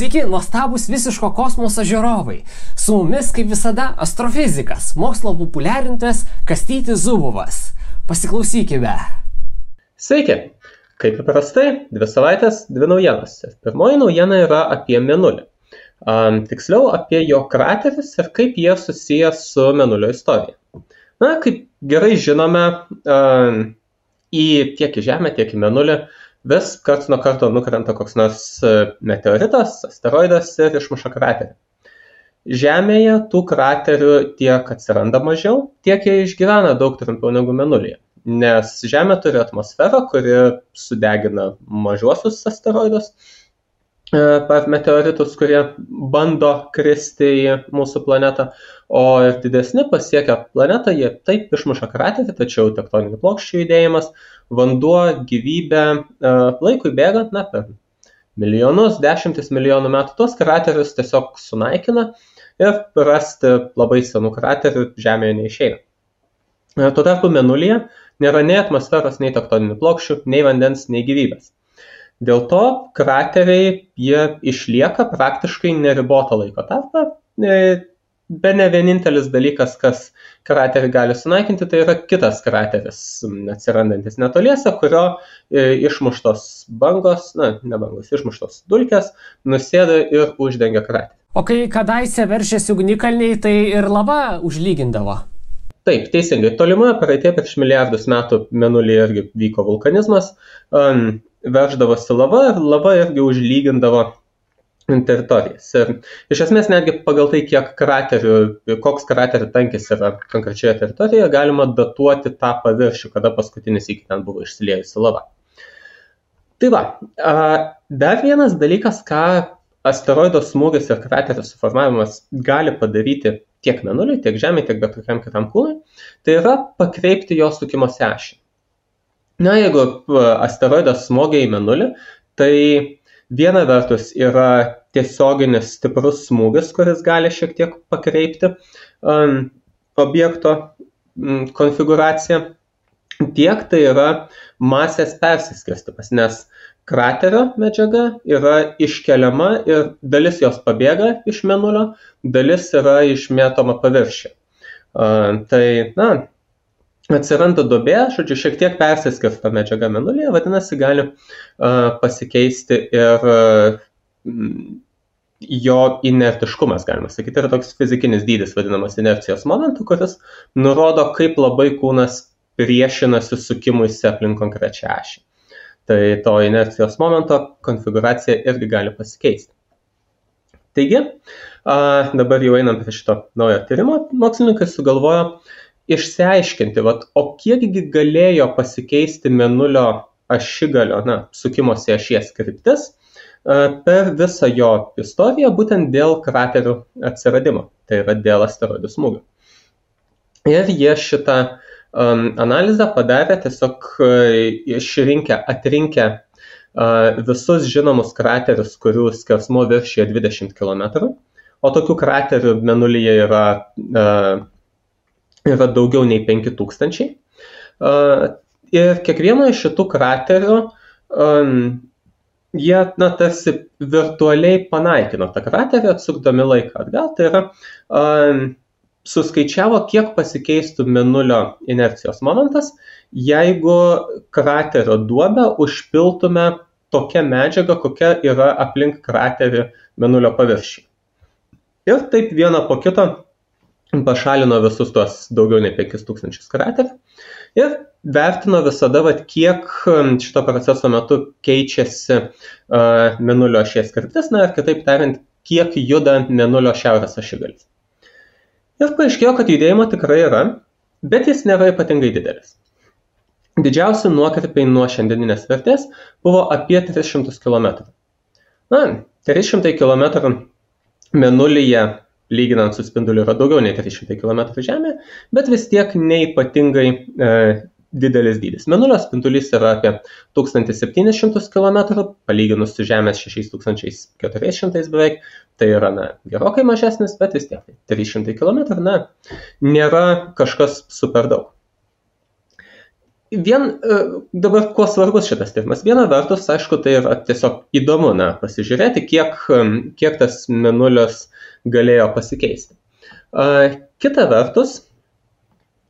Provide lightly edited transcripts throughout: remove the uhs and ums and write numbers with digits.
Sveiki, nuostabus visiško kosmoso žiūrovai. Su mumis, kaip visada, astrofizikas, mokslo populiarintojas Kastytis Zubovas. Pasiklausykime. Sveiki. Kaip įprastai, 2 savaitės, 2 naujienos. Pirmoji naujiena yra apie Mėnulį. Tiksliau, apie jo kraterius ir kaip jie susiję su Mėnulio istorija. Na, kaip gerai žinome, tiek į Žemę, tiek į Mėnulį vis karts nuo karto nukrenta koks nors meteoritas, asteroidas ir išmuša kraterį. Žemėje tų kraterių tiek atsiranda mažiau, tiek jie išgyvena daug trumpiau negu Mėnulyje. Nes Žemė turi atmosferą, kuri sudegina mažuosius asteroidus, meteoritus, kurie bando kristi į mūsų planetą, o ir didesni pasiekę planetą, jie taip išmuša kraterį, tačiau tektoninių plokščių judėjimas, vanduo, gyvybė, laikui bėgant, per milijonus, 10 milijonų metų, tos kraterius tiesiog sunaikina ir rasti labai senų kraterių Žemėje neišeina. Tuo tarpu Mėnulyje nėra nei atmosferos, nei tektoninių plokščių, nei vandens, nei gyvybės. Dėl to krateriai jie išlieka praktiškai neribotą laiko tarpą. Bene vienintelis dalykas, kas kraterį gali sunaikinti, tai yra kitas krateris, atsirandantis netoliese, kurio išmuštos bangos, išmuštos dulkės nusėda ir uždengia kraterį. O kai kadaise veržėsi ugnikalniai, tai ir lava užlygindavo. Taip, teisingai. Tolimoje praeityje prieš milijardus metų Mėnulyje irgi vyko vulkanizmas, verždavosi lava ir lava irgi užlygindavo teritorijas. Ir iš esmės netgi pagal tai, koks kraterių tankis yra konkrečioje teritorijoje, galima datuoti tą paviršių, kada paskutinis iki ten buvo išsiliejusi lava. Tai va, dar vienas dalykas, ką asteroido smūgis ir kraterio suformavimas gali padaryti tiek Mėnuliui, tiek Žemei, tiek bet kokiam kitam kūnui, tai yra pakreipti jo sukimosi ašį. Na, jeigu asteroidas smogia į Mėnulį, tai viena vertus yra tiesioginis stiprus smūgis, kuris gali šiek tiek pakreipti objekto konfiguraciją, tiek tai yra masės persiskirstymas, nes kraterio medžiaga yra iškeliama ir dalis jos pabėga iš Mėnulio, dalis yra išmėtoma paviršiuje. Atsiranda duobė, šiek tiek persiskirsto medžiaga Mėnulyje, vadinasi, gali pasikeisti ir jo inertiškumas, galima sakyti, yra toks fizikinis dydis vadinamas inercijos momentu, kuris nurodo, kaip labai kūnas priešinasi sukimuisi aplink konkrečią ašį. Tai to inercijos momento konfiguracija irgi gali pasikeisti. Taigi, dabar jau einam prie šito naujo tyrimo, mokslininkai sugalvojo išsiaiškinti, o kiekgi galėjo pasikeisti Mėnulio ašigalio, sukimosi ašies kryptis per visą jo istoriją, būtent dėl kraterių atsiradimo, tai yra dėl asteroidų smūgio. Ir jie šitą analizę padarė tiesiog atrinkę visus žinomus kraterius, kurių skersmuo viršija 20 km, o tokių kraterių Mėnulyje yra daugiau nei 5000. Ir kiekvieno iš šitų kraterių jie tarsi virtualiai panaikino tą kraterį, atsukdami laiką atgal. Tai yra suskaičiavo, kiek pasikeistų Mėnulio inercijos momentas, jeigu kraterio duobę užpiltume tokia medžiaga, kokia yra aplink kraterį Mėnulio paviršių. Ir taip vieną po kito pašalino visus tuos daugiau nei 5000 kraterių ir vertino visada, kiek šito proceso metu keičiasi Mėnulio ašies kryptis, ir kitaip tariant, kiek juda Mėnulio šiaurės ašigalis. Ir paaiškėjo, kad judėjimo tikrai yra, bet jis nėra ypatingai didelis. Didžiausi nuokrypiai nuo šiandieninės vertės buvo apie 300 km. 300 km Mėnulyje, lyginant su spinduliu, yra daugiau nei 300 km Žemėje, bet vis tiek neypatingai didelis dydis. Mėnulio spindulys yra apie 1700 km, palyginus su Žemės 6400 beveik, tai yra gerokai mažesnis, bet vis tiek 300 km nėra kažkas super daug. Dabar kuo svarbus šitas tyrimas? Viena vertus, aišku, tai yra tiesiog įdomu pasižiūrėti, kiek tas mėnulis galėjo pasikeisti. Kita vertus,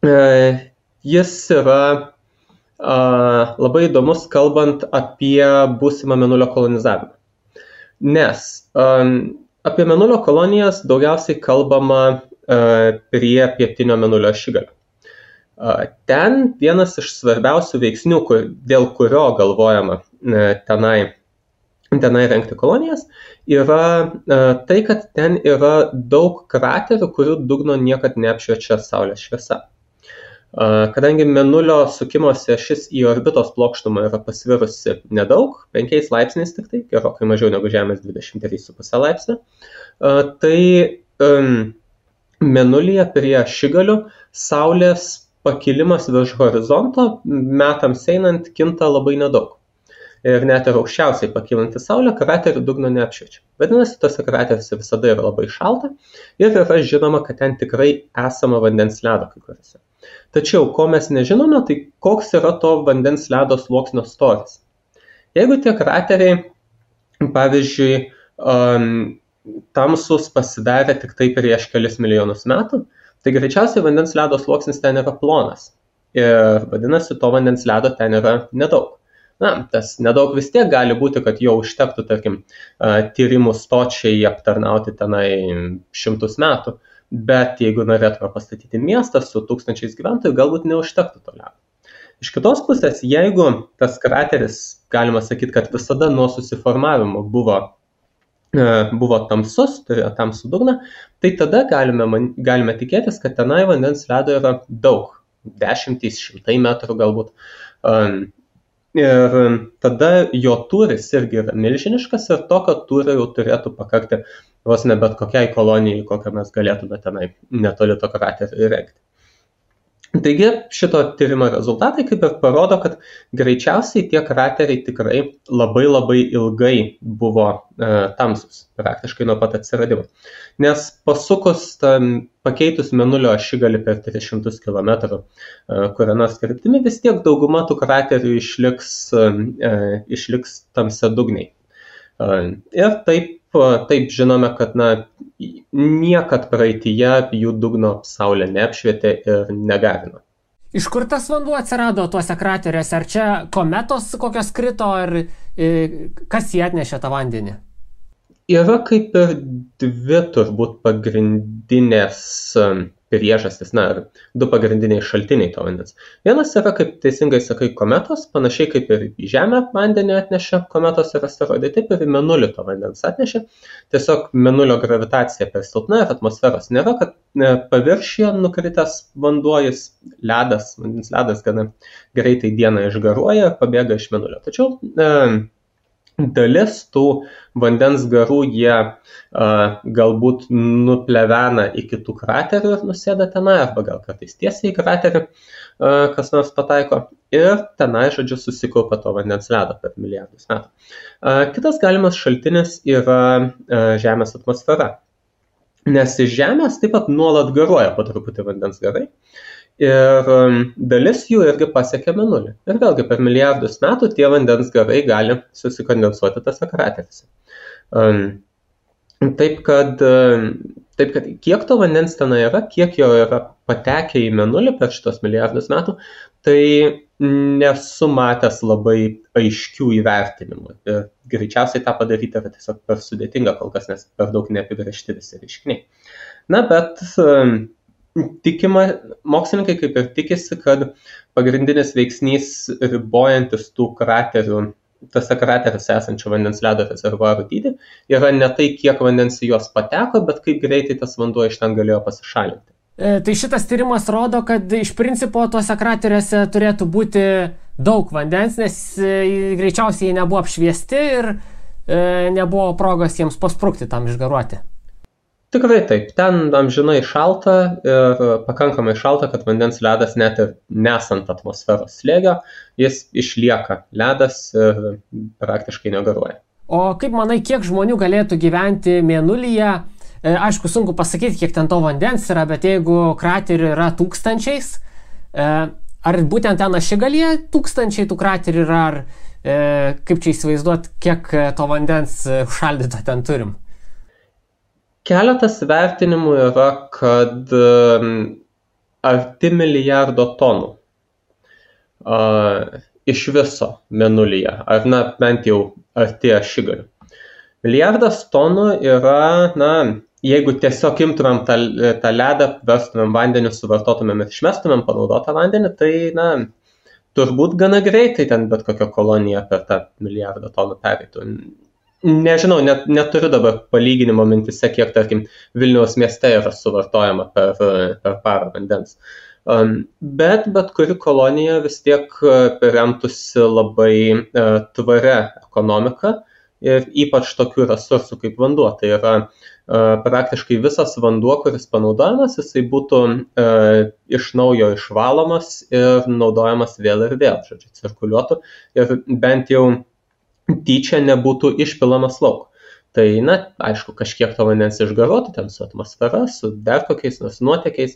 jis yra labai įdomus, kalbant apie būsimą mėnulio kolonizavimą. Nes apie mėnulio kolonijas daugiausiai kalbama prie pietinio mėnulio ašigalio. Ten vienas iš svarbiausių veiksnių, dėl kurio galvojama tenai rengti kolonijas, yra tai, kad ten yra daug kraterių, kurių dugno niekad neapšviečia saulės šviesa. Kadangi mėnulio sukimosi ašis į orbitos plokštumą yra pasvirusi nedaug, 5 laipsniais tik tai, gerokai mažiau negu Žemės 23,5 laipsnio, tai mėnulyje prie ašigalių saulės pakilimas virš horizonto metams einant kinta labai nedaug. Ir net ir aukščiausiai pakylanti saulė kraterių dugno neapšviečia. Vadinasi, tose krateriuose visada yra labai šalta ir yra žinoma, kad ten tikrai esama vandens ledo kai kuriuose. Tačiau, ko mes nežinome, tai koks yra to vandens ledo sluoksnio storis. Jeigu tie krateriai, pavyzdžiui, tamsus pasidarė tik tai prieš kelis milijonus metų, tai greičiausiai vandens ledo sluoksnis ten yra plonas. Ir vadinasi, to vandens ledo ten yra nedaug. Tas nedaug vis tiek gali būti, kad jo užtektų, tarkim, tyrimų stočiai aptarnauti tenai 100 metų, bet jeigu norėtume pastatyti miestą su 1000 gyventojų, galbūt neužtektų to ledo. Iš kitos pusės, jeigu tas krateris, galima sakyti, kad visada nuo susiformavimo buvo tamsus, turėjo tamsų dugną, tai tada galime tikėtis, kad tenai vandens ledo yra daug, 10-100 metrų galbūt. Ir tada jo tūris irgi yra milžiniškas ir tokio tūrio jau turėtų pakakti vos ne bet kokiai kolonijai, kokią mes galėtume tenai netoli to kraterio įrengti. Taigi šito tyrimo rezultatai kaip ir parodo, kad greičiausiai tie krateriai tikrai labai labai ilgai buvo tamsus, praktiškai nuo pat atsiradimo. Nes pasukus pakeitus mėnulio ašigalį per 300 km kuria nors kryptimi, vis tiek dauguma tų kraterių išliks tamsiadugniai. Ir taip žinome, kad niekad praeityje jų dugno saulė neapšvietė ir negarino. Iš kur tas vanduo atsirado tuose krateriuose? Ar čia kometos kokios krito, ar kas jį atnešė tą vandenį? Yra kaip ir dvi turbūt pagrindinės priežastys, du pagrindiniai šaltiniai to vandens. Vienas yra, kaip teisingai sakai, kometos, panašiai kaip ir į Žemę vandenį atnešė kometos ir asteroidai, taip ir į mėnulį to vandens atnešė. Tiesiog mėnulio gravitacija per silpna ir atmosferos nėra, kad paviršiuje nukritęs vanduo, vandens ledas gana greitai dieną išgaruoja ir pabėga iš mėnulio. Tačiau dalis tų vandens garų jie galbūt nuplevena į kitų kraterių ir nusėda tenai, arba gal kartais tiesiai į kraterį kas nors pataiko ir tenai, žodžiu, susikaupia to vandens ledo per milijardus metų. Kitas galimas šaltinis yra Žemės atmosfera, nes iš Žemės taip pat nuolat garuoja po truputį vandens garai. Ir dalis jų irgi pasiekia mėnulį. Ir vėlgi per milijardus metų tie vandens garai gali susikondensuoti tose krateriuose. Taip kad kiek to vandens ten yra, kiek jo yra patekę į mėnulį per šitos milijardus metų, tai nesu matęs labai aiškių įvertinimų. Ir greičiausiai tą padaryti yra tiesiog per sudėtinga kol kas, nes per daug neapibrėžti visi reiškiniai. Bet mokslininkai kaip ir tikisi, kad pagrindinis veiksnys ribojantis tų kraterių, tose krateriuose esančio vandens ledo rezervuarų dydį, yra ne tai, kiek vandens į juos pateko, bet kaip greitai tas vanduo iš ten galėjo pasišalinti. Tai šitas tyrimas rodo, kad iš principo tuose krateriuose turėtų būti daug vandens, nes greičiausiai jie nebuvo apšviesti ir nebuvo progos jiems pasprukti tam išgaruoti. Tikrai taip, ten amžinai šalta ir pakankamai šalta, kad vandens ledas net ir nesant atmosferos slėgio, jis išlieka ledas ir praktiškai negaruoja. O kaip manai, kiek žmonių galėtų gyventi mėnulyje? Aišku, sunku pasakyti, kiek ten to vandens yra, bet jeigu kraterių yra tūkstančiais, ar būtent ten Ašigalyje tūkstančiai tų kraterių yra, ar kaip čia įsivaizduot, kiek to vandens užšaldyto ten turim? Keletas vertinimų yra, kad arti milijardo tonų iš viso Mėnulyje, ar bent jau arti Ašigalių. Milijardas tonų yra, jeigu tiesiog imtumėm tą ledą, verstumėm vandenį, suvartotumėm ir išmestumėm panaudotą vandenį, tai, turbūt gana greitai ten bet kokia kolonija per tą milijardą tonų pereitų. Nežinau, neturiu dabar palyginimo mintise, kiek, tarkim, Vilniaus mieste yra suvartojama per parą vandens. Bet kuri kolonija vis tiek remtųsi labai tvaria ekonomika ir ypač tokių resursų kaip vanduo. Tai yra praktiškai visas vanduo, kuris panaudojamas, jisai būtų iš naujo išvalomas ir naudojamas vėl ir vėl, cirkuliuotų ir bent jau tyčia nebūtų išpilamas lauk. Tai, aišku, kažkiek to vandens išgaruotų ten su atmosfera, su dar kokiais nors nuotekiais,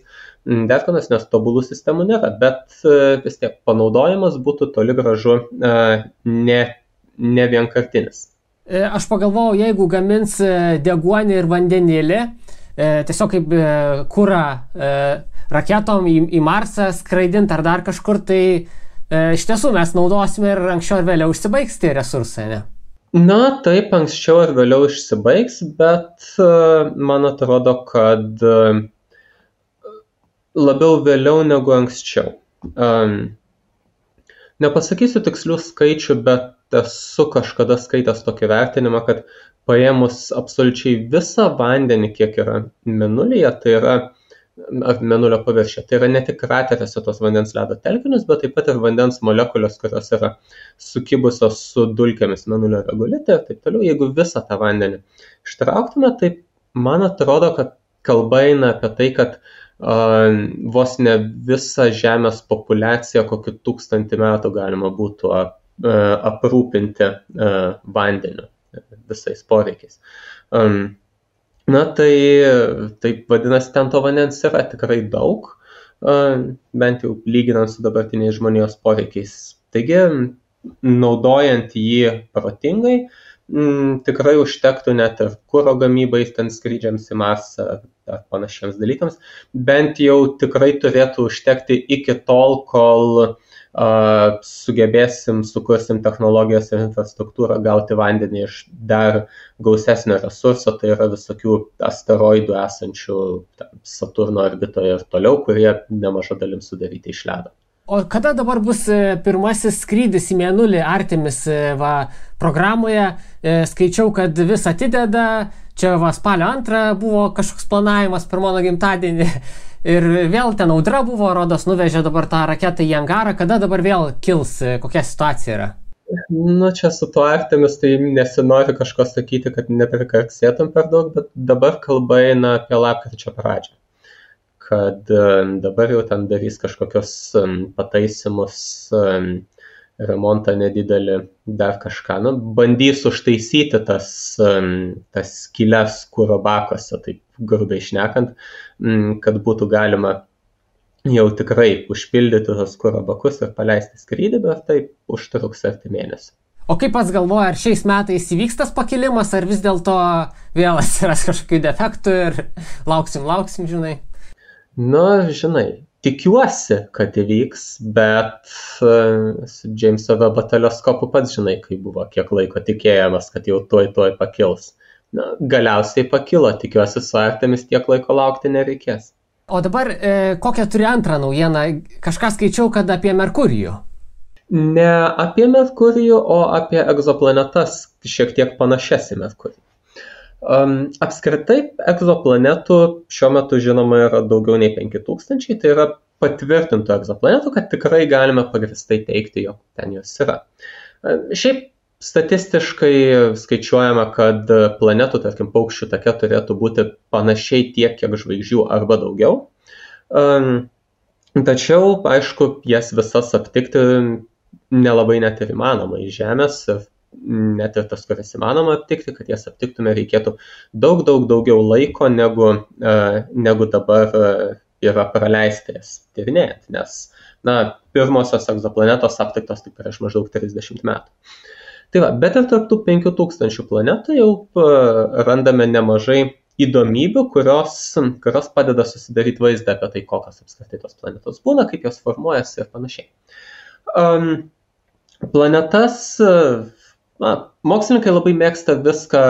dar kokios, nes tobulų sistemų nėra, bet vis tiek panaudojimas būtų toli gražu ne vienkartinis. Aš pagalvojau, jeigu gamins deguonį ir vandenėlį, tiesiog kaip kurą raketom į Marsą skraidint ar dar kažkur, tai iš tiesų mes naudosime ir anksčiau ir vėliau užsibaigs tie resursai, ne? Taip, anksčiau ir vėliau išsibaigs, bet man atrodo, kad labiau vėliau negu anksčiau. Nepasakysiu tikslių skaičių, bet esu kažkada skaitęs tokį vertinimą, kad paėmus absoliučiai visą vandenį, kiek yra Mėnulyje, tai yra Mėnulio paviršiuje. Tai yra ne tik krateriuose tos vandens ledo telkinius, bet taip pat ir vandens molekulės, kurios yra sukibusios su dulkėmis Mėnulio regolite ir taip toliau. Jeigu visą tą vandenį ištrauktume, tai man atrodo, kad kalba eina apie tai, kad vos ne visą Žemės populiaciją kokį 1000 metų galima būtų aprūpinti vandeniu visais poreikiais. Tai vadinasi, ten to vandens yra tikrai daug, bent jau lyginant su dabartiniais žmonijos poreikiais. Taigi, naudojant jį protingai, tikrai užtektų net ir kuro gamybai, ten skrydžiams į Marsą ar panašiems dalykams, bent jau tikrai turėtų užtekti iki tol, kol sukursim technologijas ir infrastruktūrą gauti vandenį iš dar gausesnio resurso, tai yra visokių asteroidų esančių Saturno orbitoje ir toliau, kurie nemaža dalim sudaryti iš ledo. O kada dabar bus pirmasis skrydis į Mėnulį Artemis programoje? Skaičiau, kad vis atideda, čia spalio 2 buvo kažkoks planavimas per mano gimtadienį. Ir vėl ten audra buvo, rodos, nuvežė dabar tą raketą į angarą. Kada dabar vėl kils, kokia situacija yra? Čia su tuo Artemis, tai nesinori kažko sakyti, kad neprikarksėtum per daug, bet dabar kalba eina apie lapkričio pradžią. Kad dabar jau ten darys kažkokios pataisimus, remontą nedidelį, dar kažką. Bandys užtaisyti tas skyles kuro bakuose, taip grubiai šnekant, kad būtų galima jau tikrai užpildyti tos kuro bakus ir paleisti skrydį, bet taip užtruks arti mėnesį. O kaip pats galvoja, ar šiais metais įvyks tas pakilimas, ar vis dėlto vėl atsiras kažkokių defektų ir lauksim, žinai? Žinai, tikiuosi, kad įvyks, bet su Jameso Webb teleskopu pats žinai, kai buvo kiek laiko tikėjamas, kad jau tuoj pakils. Galiausiai pakilo, tikiuosi su Artemis tiek laiko laukti nereikės. O dabar kokią turi antrą naujieną? Kažką skaičiau, kad apie Merkurijų. Ne apie Merkurijų, o apie egzoplanetas šiek tiek panašias į Merkurijų. Apskritai, egzoplanetų šiuo metu žinoma yra daugiau nei 5000, tai yra patvirtintų egzoplanetų, kad tikrai galime pagrįstai teikti, jog ten jos yra. Šiaip statistiškai skaičiuojama, kad planetų, tarkim, paukščių take turėtų būti panašiai tiek, kiek žvaigždžių arba daugiau. Tačiau, aišku, jas visas aptikti nelabai net ir įmanoma iš Žemės ir net ir tas, kuris įmanoma aptikti, kad jas aptiktume, reikėtų daug daugiau laiko negu dabar yra praleista jas tyrinėjant, nes pirmosios egzoplanetos aptiktos tik prieš maždaug 30 metų. Tai va, bet ir tarp tų 5000 planetų jau randame nemažai įdomybių, kurios padeda susidaryti vaizdą apie tai, kokios apskritai tos planetos būna, kaip jos formuojasi ir panašiai. Planetas, mokslininkai labai mėgsta viską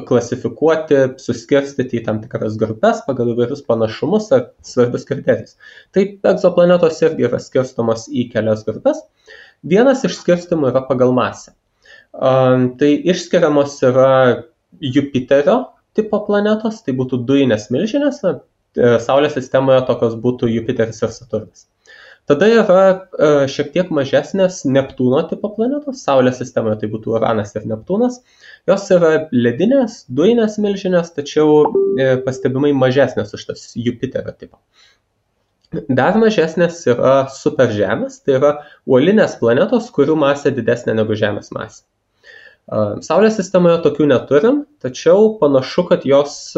klasifikuoti, suskirstyti į tam tikras grupės pagal įvairius panašumus ar svarbius kriterijus. Taip, egzoplanetos irgi yra skirstomos į kelias grupės. Vienas iš skirstimų yra pagal masę. Tai išskiriamos yra Jupiterio tipo planetos, tai būtų dujinės milžinės, Saulės sistemoje tokios būtų Jupiteris ir Saturnas. Tada yra šiek tiek mažesnės Neptūno tipo planetos, Saulės sistemoje tai būtų Uranas ir Neptūnas. Jos yra ledinės, dujinės milžinės, tačiau pastebimai mažesnės už tas Jupiterio tipo. Dar mažesnės yra superžemės, tai yra uolinės planetos, kurių masė didesnė negu Žemės masė. Saulės sistemoje tokių neturim, tačiau panašu, kad jos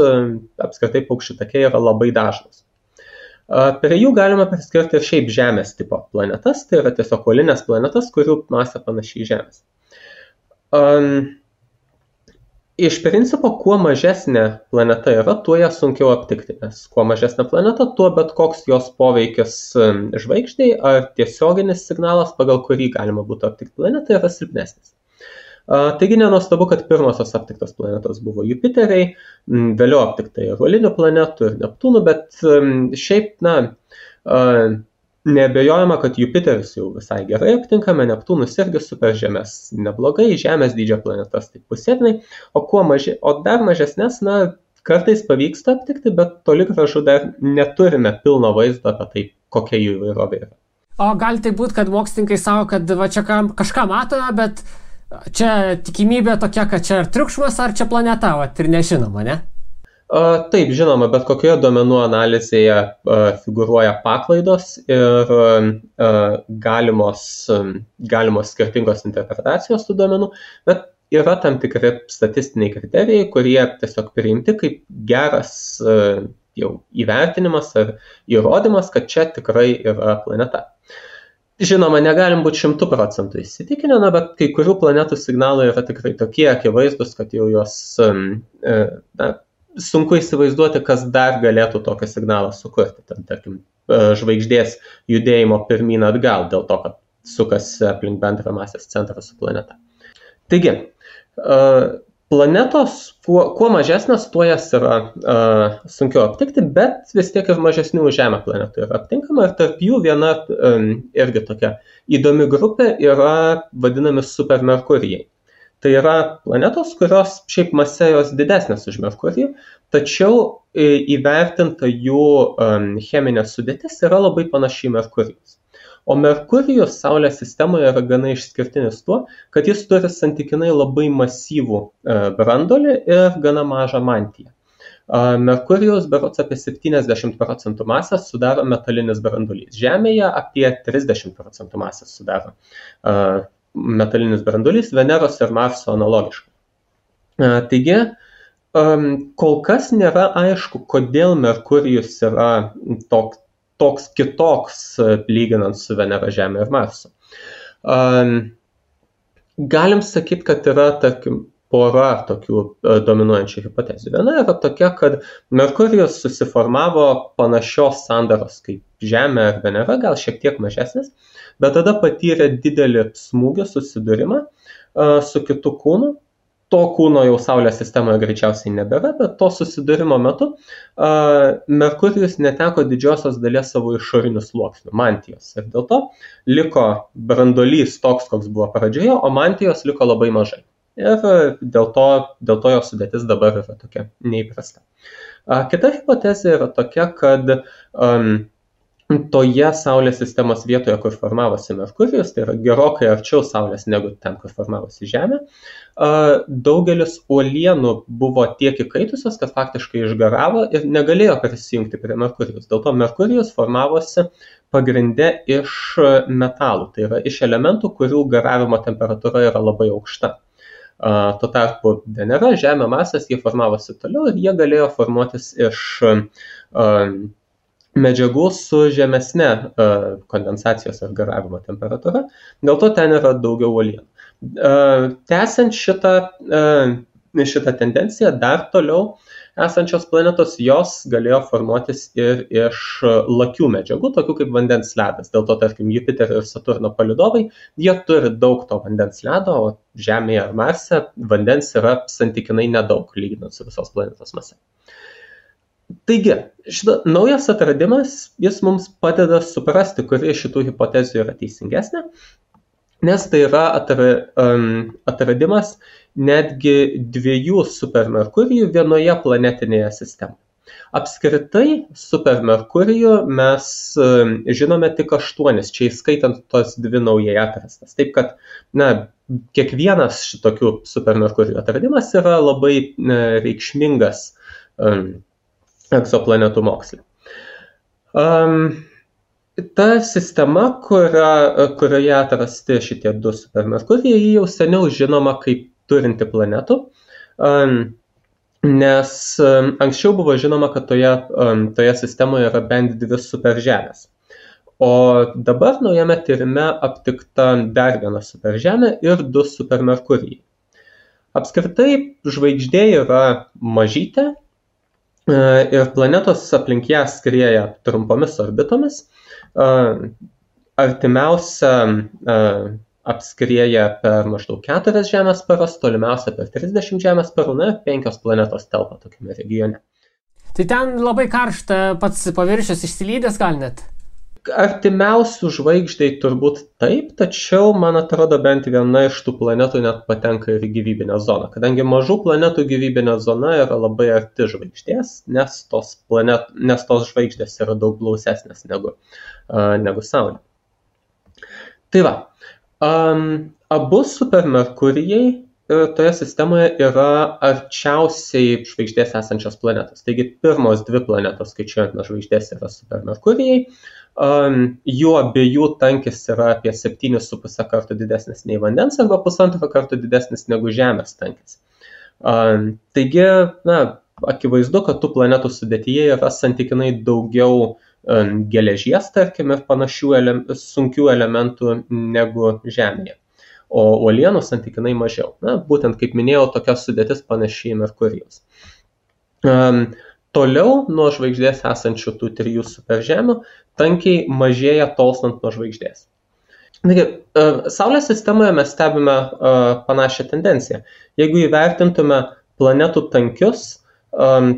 apskritai paukščių takiai yra labai dažnos. Prie jų galima priskirti ir šiaip Žemės tipo planetas, tai yra tiesiog uolinės planetas, kurių masė panašiai Žemės. Iš principo, kuo mažesnė planeta yra, tuo ją sunkiau aptikti, nes kuo mažesnė planeta, tuo bet koks jos poveikis žvaigždei ar tiesioginis signalas, pagal kurį galima būtų aptikti planetą, yra silpnesnis. Taigi nenuostabu, kad pirmosios aptiktos planetos buvo Jupiteriai, vėliau aptikta ir uolinių planetų ir Neptūnų, bet šiaip, neabejojama, kad Jupiteris jau visai gerai aptinkame, Neptūnus irgi superžemės neblogai, Žemės dydžio planetas taip pusėtinai, o dar mažesnės, kartais pavyksta aptikti, bet toli gražu dar neturime pilno vaizdo apie tai, kokia jų įvairovė yra. O gali tai būti, kad mokslininkai savo, kad va čia kažką matome, bet čia tikimybė tokia, kad čia ar triukšmas, ar čia planeta, ir nežinoma, ne? Taip, žinoma, bet kokioje duomenų analizėje figūruoja paklaidos ir galimos skirtingos interpretacijos tų duomenų, bet yra tam tikri statistiniai kriterijai, kurie tiesiog priimti kaip geras jau įvertinimas ar įrodymas, kad čia tikrai yra planeta. Žinoma, negalim būti 100% įsitikinę, bet kai kurių planetų signalai yra tikrai tokie akivaizdus, kad jau jos sunku įsivaizduoti, kas dar galėtų tokį signalą sukurti. Tarkim, žvaigždės judėjimo pirmyn atgal dėl to, kad sukasi aplink bendrą masės centrą su planeta. Taigi, planetos, kuo mažesnės, tuo jas yra sunkiau aptikti, bet vis tiek ir mažesnių Žemę planetų yra aptinkama ir tarp jų viena irgi tokia įdomi grupė yra vadinami supermerkurijai. Tai yra planetos, kurios šiaip masė jos didesnės už Merkurijų, tačiau įvertinta jų cheminė sudėtis yra labai panaši į Merkurijos. O Merkurijus Saulės sistemoje yra gana išskirtinis tuo, kad jis turi santykinai labai masyvų branduolį ir gana mažą mantiją. Merkurijus berods apie 70% masės sudaro metalinis branduolys. Žemėje apie 30% masės sudaro metalinis branduolys, Veneros ir Marso analogiškai. Taigi, kol kas nėra aišku, kodėl Merkurijus yra toks kitoks lyginant su Venera, Žemė ir Marsu. Galim sakyti, kad yra, tarkim, pora tokių dominuojančių hipotezių. Viena yra tokia, kad Merkurijus susiformavo panašios sandaros kaip Žemė ar Venera, gal šiek tiek mažesnis, bet tada patyrė didelį smūgį susidūrimą su kitu kūnu. To kūno jau Saulės sistemoje greičiausiai nebėra, bet to susidūrimo metu Merkurijus neteko didžiosios dalies savo išorinių sluoksnių, mantijos. Ir dėl to liko branduolys toks, koks buvo pradžioje, o mantijos liko labai mažai. Ir dėl to jo sudėtis dabar yra tokia neįprasta. Kita hipotezė yra tokia, kad toje Saulės sistemos vietoje, kur formavosi Merkurijus, tai yra gerokai arčiau Saulės negu ten, kur formavosi Žemė, daugelis uolienų buvo tiek įkaitusios, kad faktiškai išgaravo ir negalėjo prisijungti prie Merkurijus. Dėl to Merkurijus formavosi pagrinde iš metalų, tai yra iš elementų, kurių garavimo temperatūra yra labai aukšta. Tuo tarpu Venera, Žemė, Marsas, jie formavosi toliau ir jie galėjo formuotis iš medžiagų su žemesne kondensacijos ar garavimo temperatūra, dėl to ten yra daugiau uolienų. Tęsiant šitą tendenciją, dar toliau esančios planetos, jos galėjo formuotis ir iš lakių medžiagų, tokių kaip vandens ledas. Dėl to, tarkim, Jupiterio ir Saturno palydovai, jie turi daug to vandens ledo, o Žemėje ar Marse vandens yra santykinai nedaug, lyginant su visos planetos mase. Taigi, šitas naujas atradimas, jis mums padeda suprasti, kuri iš šitų hipotezių yra teisingesnė, nes tai yra atradimas netgi 2 supermerkurijų vienoje planetinėje sistemoje. Apskritai, supermerkurijų mes žinome tik 8, čia įskaitant tos 2 naujai atrastas. Taip kad, kiekvienas šitokių supermerkurijų atradimas yra labai reikšmingas egzoplanetų moksle. Ta sistema, kurioje atrasti šitie 2 supermerkurijai, jau seniau žinoma kaip turinti planetų, nes anksčiau buvo žinoma, kad toje sistemoje yra bent 2 superžemės. O dabar naujame tyrime aptikta dar 1 superžemė ir 2 supermerkurijai. Apskritai, žvaigždė yra mažytė, ir planetos aplink ją skrieja trumpomis orbitomis. Artimiausia apskrieja per maždaug 4 Žemės paras, tolimiausia per 30 Žemės parų, 5 planetos telpa tokiame regione. Tai ten labai karšta, pats paviršius išsilydęs gal net? Artimiausių žvaigždei turbūt taip, tačiau, man atrodo, bent viena iš tų planetų net patenka ir į gyvybinę zoną, kadangi mažų planetų gyvybinė zona yra labai arti žvaigždės, nes tos žvaigždės yra daug blausesnės negu Saulė. Tai va, abu supermerkurijai toje sistemoje yra arčiausiai žvaigždės esančios planetos. Taigi pirmos 2 planetos, skaičiuojant nuo žvaigždės, yra supermerkurijai. Jų abiejų tankis yra apie 7,5 kartų didesnis nei vandens arba 1,5 kartų didesnis negu Žemės tankis. Taigi, akivaizdu, kad tų planetų sudėtyje yra santykinai daugiau geležies, tarkim, ir panašių sunkių elementų negu Žemėje. O uolienų santykinai mažiau. Būtent, kaip minėjau, tokia sudėtis panašiai Merkurijos. Toliau nuo žvaigždės esančių tų 3 superžemių tankiai mažėja tolstant nuo žvaigždės. Taigi, Saulės sistemoje mes stebime panašią tendenciją. Jeigu įvertintume planetų tankius,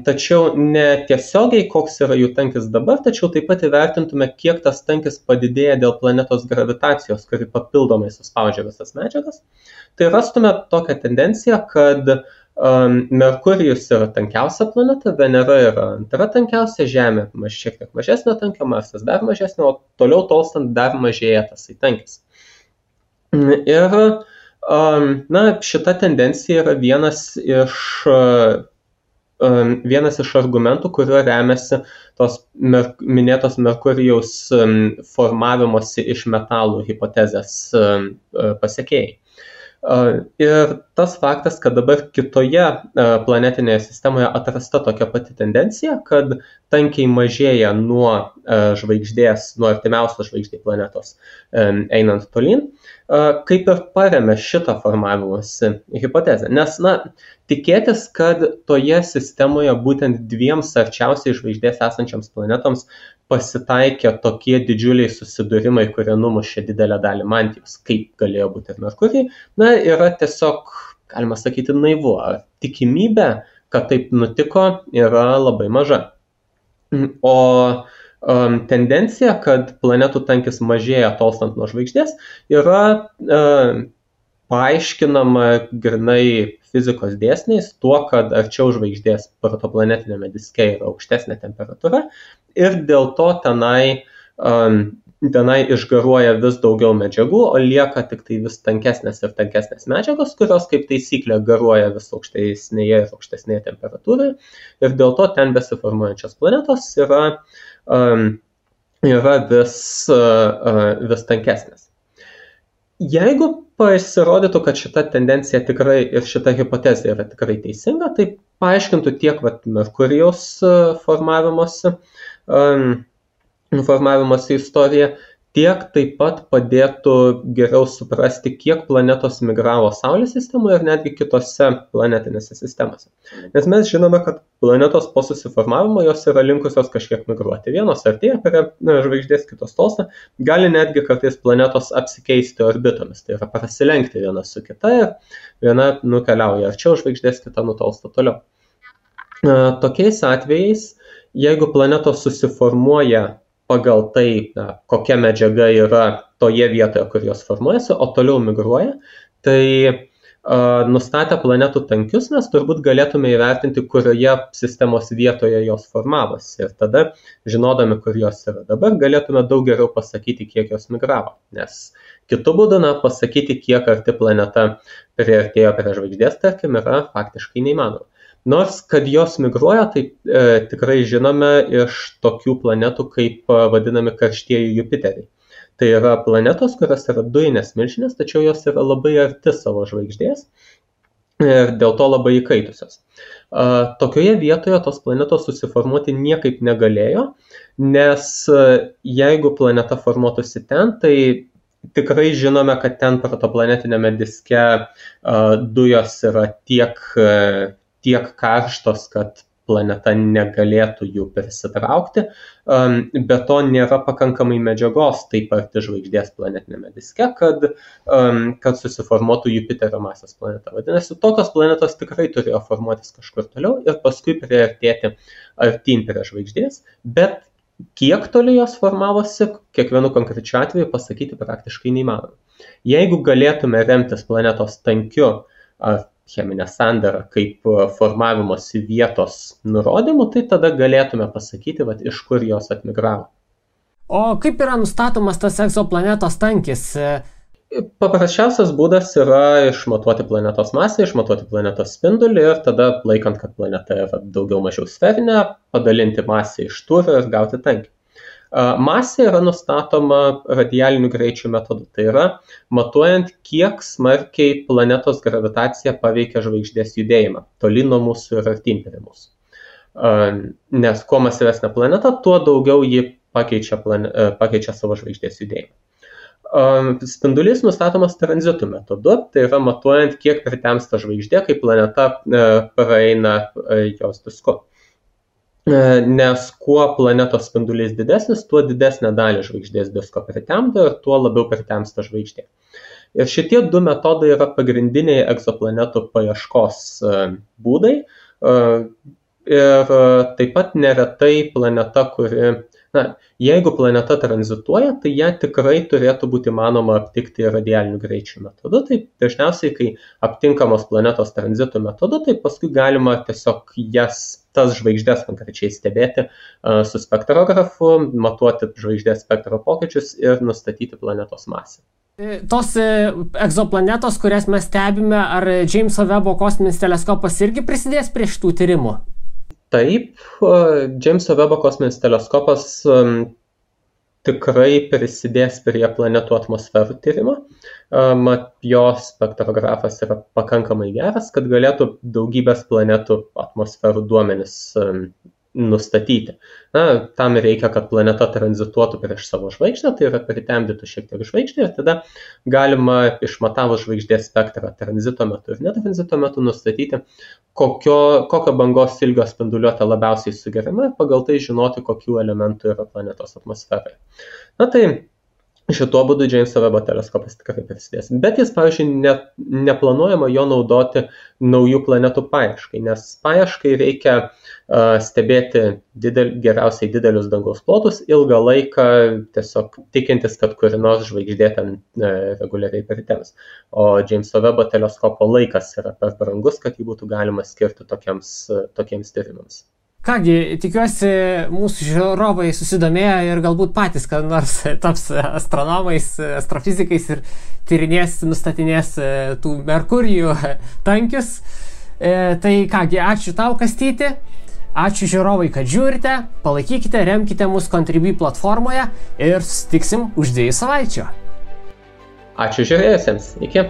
tačiau ne tiesiogiai, koks yra jų tankis dabar, tačiau taip pat įvertintume, kiek tas tankis padidėja dėl planetos gravitacijos, kuri papildomai suspaudžia visas medžiagas, tai rastume tokią tendenciją, kad Merkurijus yra tankiausia planeta, Venera yra antra tankiausia, Žemė šiek tiek mažesnio tankio, Marsas dar mažesnio, o toliau tolstant dar mažėja tas tankis. Ir šita tendencija yra vienas iš argumentų, kuriuo remiasi tos minėtos Merkurijaus formavimosi iš metalų hipotezės pasekėjai. Ir tas faktas, kad dabar kitoje planetinėje sistemoje atrasta tokia pati tendencija, kad tankiai mažėja nuo žvaigždės, nuo artimiausios žvaigždės planetos einant tolyn, kaip ir paremia šitą formavimosi hipotezę. Nes, tikėtis, kad toje sistemoje būtent 2 arčiausiai žvaigždės esančiams planetoms pasitaikė tokie didžiuliai susidūrimai, kurie numušė didelę dalį mantijos, kaip galėjo būti ir Merkurijai, yra tiesiog, galima sakyti, naivu. Tikimybė, kad taip nutiko, yra labai maža. O tendencija, kad planetų tankis mažėja tolstant nuo žvaigždės, yra paaiškinama grinai fizikos dėsniais tuo, kad arčiau žvaigždės protoplanetinėme diske yra aukštesnė temperatūra ir dėl to tenai išgaruoja vis daugiau medžiagų, o lieka tik tai vis tankesnės ir tankesnės medžiagos, kurios kaip taisyklė garuoja vis aukštesnėje ir aukštesnėje temperatūroje ir dėl to ten besiformuojančios planetos yra vis tankesnės. Jeigu pasirodytų, kad šita tendencija tikrai ir šita hipotezė yra tikrai teisinga, tai paaiškintų tiek Merkurijaus formavimosi formavimosi istoriją, tiek taip pat padėtų geriau suprasti, kiek planetos migravo Saulės sistemoje ir netgi kitose planetinėse sistemose. Nes mes žinome, kad planetos po susiformavimo jos yra linkusios kažkiek migruoti. Vienos artėja prie žvaigždės, kitos tolsta, gali netgi kartais planetos apsikeisti orbitomis, tai yra prasilenkti viena su kita ir viena nukeliauja arčiau žvaigždės, kita nutolsta toliau. Tokiais atvejais, jeigu planetos susiformuoja pagal tai, kokia medžiaga yra toje vietoje, kur jos formuojasi, o toliau migruoja, tai nustatę planetų tankius mes turbūt galėtume įvertinti, kurioje sistemos vietoje jos formavosi. Ir tada, žinodami, kur jos yra dabar, galėtume daug geriau pasakyti, kiek jos migravo. Nes kitu būdu, pasakyti, kiek arti planeta priartėjo prie žvaigždės, tarkim, yra faktiškai neįmanoma. Nors, kad jos migruoja, tai tikrai žinome iš tokių planetų, kaip vadinami karštieji Jupiteriai. Tai yra planetos, kurios yra dujinės milžinės, tačiau jos yra labai arti savo žvaigždės ir dėl to labai įkaitusios. Tokioje vietoje tos planetos susiformuoti niekaip negalėjo, nes jeigu planeta formuotųsi ten, tai tikrai žinome, kad ten protoplanetinėme diske dujos yra tiek karštos, kad planeta negalėtų jų prisitraukti, be to nėra pakankamai medžiagos taip arti žvaigždės planetinėme diske, kad susiformuotų Jupiterio masės planeta. Vadinasi, tokios planetos tikrai turėjo formuotis kažkur toliau ir paskui priartėti artyn prie žvaigždės, bet kiek toli jos formavosi, kiekvienu konkrečiu atveju pasakyti praktiškai neįmanoma. Jeigu galėtume remtis planetos tankiu ar cheminę sandarą kaip formavimosi vietos nurodymų, tai tada galėtume pasakyti, iš kur jos atmigravo. O kaip yra nustatomas tas egzoplanetos tankis? Paprasčiausias būdas yra išmatuoti planetos masę, išmatuoti planetos spindulį ir tada, laikant, kad planeta yra daugiau mažiau sferinė, padalinti masę iš tūrio ir gauti tankį. Masė yra nustatoma radialinių greičių metodu, tai yra matuojant, kiek smarkiai planetos gravitacija paveikia žvaigždės judėjimą, toli nuo mūsų ir artyn prie mūsų. Nes kuo masyvesnė planeta, tuo daugiau ji pakeičia savo žvaigždės judėjimą. Spindulys nustatomas tranzitų metodu, tai yra matuojant, kiek pritemsta žvaigždė, kai planeta praeina jos disku. Nes kuo planetos spindulys didesnis, tuo didesnę dalį žvaigždės disko pritemdo ir tuo labiau pritemsta žvaigždė. Ir šitie du metodai yra pagrindiniai egzoplanetų paieškos būdai. Ir taip pat neretai planeta, jeigu planeta tranzituoja, tai ją tikrai turėtų būti manoma aptikti radialinių greičių metodu. Tai dažniausiai, kai aptinkamos planetos tranzitų metodu, tai paskui galima tiesiog tas žvaigždės konkrečiai stebėti su spektrografu, matuoti žvaigždės spektro pokyčius ir nustatyti planetos masę. Tos egzoplanetos, kurias mes stebime, ar Džeimso Vebo kosminis teleskopas irgi prisidės prie šitų tyrimų? Taip, Džeimso Vebo kosminis teleskopas tikrai prisidės prie planetų atmosferų tyrimo. Jo spektrografas yra pakankamai geras, kad galėtų daugybės planetų atmosferų duomenis nustatyti. Tam reikia, kad planeta tranzituotų prieš savo žvaigždę, tai yra pritemdytų šiek tiek žvaigždę ir tada galima išmatavus žvaigždės spektrą tranzito metu ir netranzito metu nustatyti, kokio bangos ilgio spinduliuotė labiausiai sugeriama ir pagal tai žinoti, kokių elementų yra planetos atmosferoje. Tai šituo būdu Džeimso Vebo teleskopas tikrai prisidės. Bet jis, pavyzdžiui, neplanuojama jo naudoti naujų planetų paieškai, nes paieškai reikia stebėti geriausiai didelius dangaus plotus ilgą laiką, tiesiog tikintis, kad kuri nors žvaigždė ten reguliariai pritems. O Džeimso Vebo teleskopo laikas yra per brangus, kad jį būtų galima skirti tokiems tyrimams. Kągi, tikiuosi, mūsų žiūrovai susidomėjo ir galbūt patys, kad nors taps astronomais, astrofizikais ir tyrinės, nustatinės tų Merkurijų tankius. Tai kągi, ačiū tau, Kastyti. Ačiū žiūrovai, kad žiūrite. Palaikykite, remkite mus Contribui platformoje ir susitiksim už 2 savaičių. Ačiū žiūrėjusiems. Iki.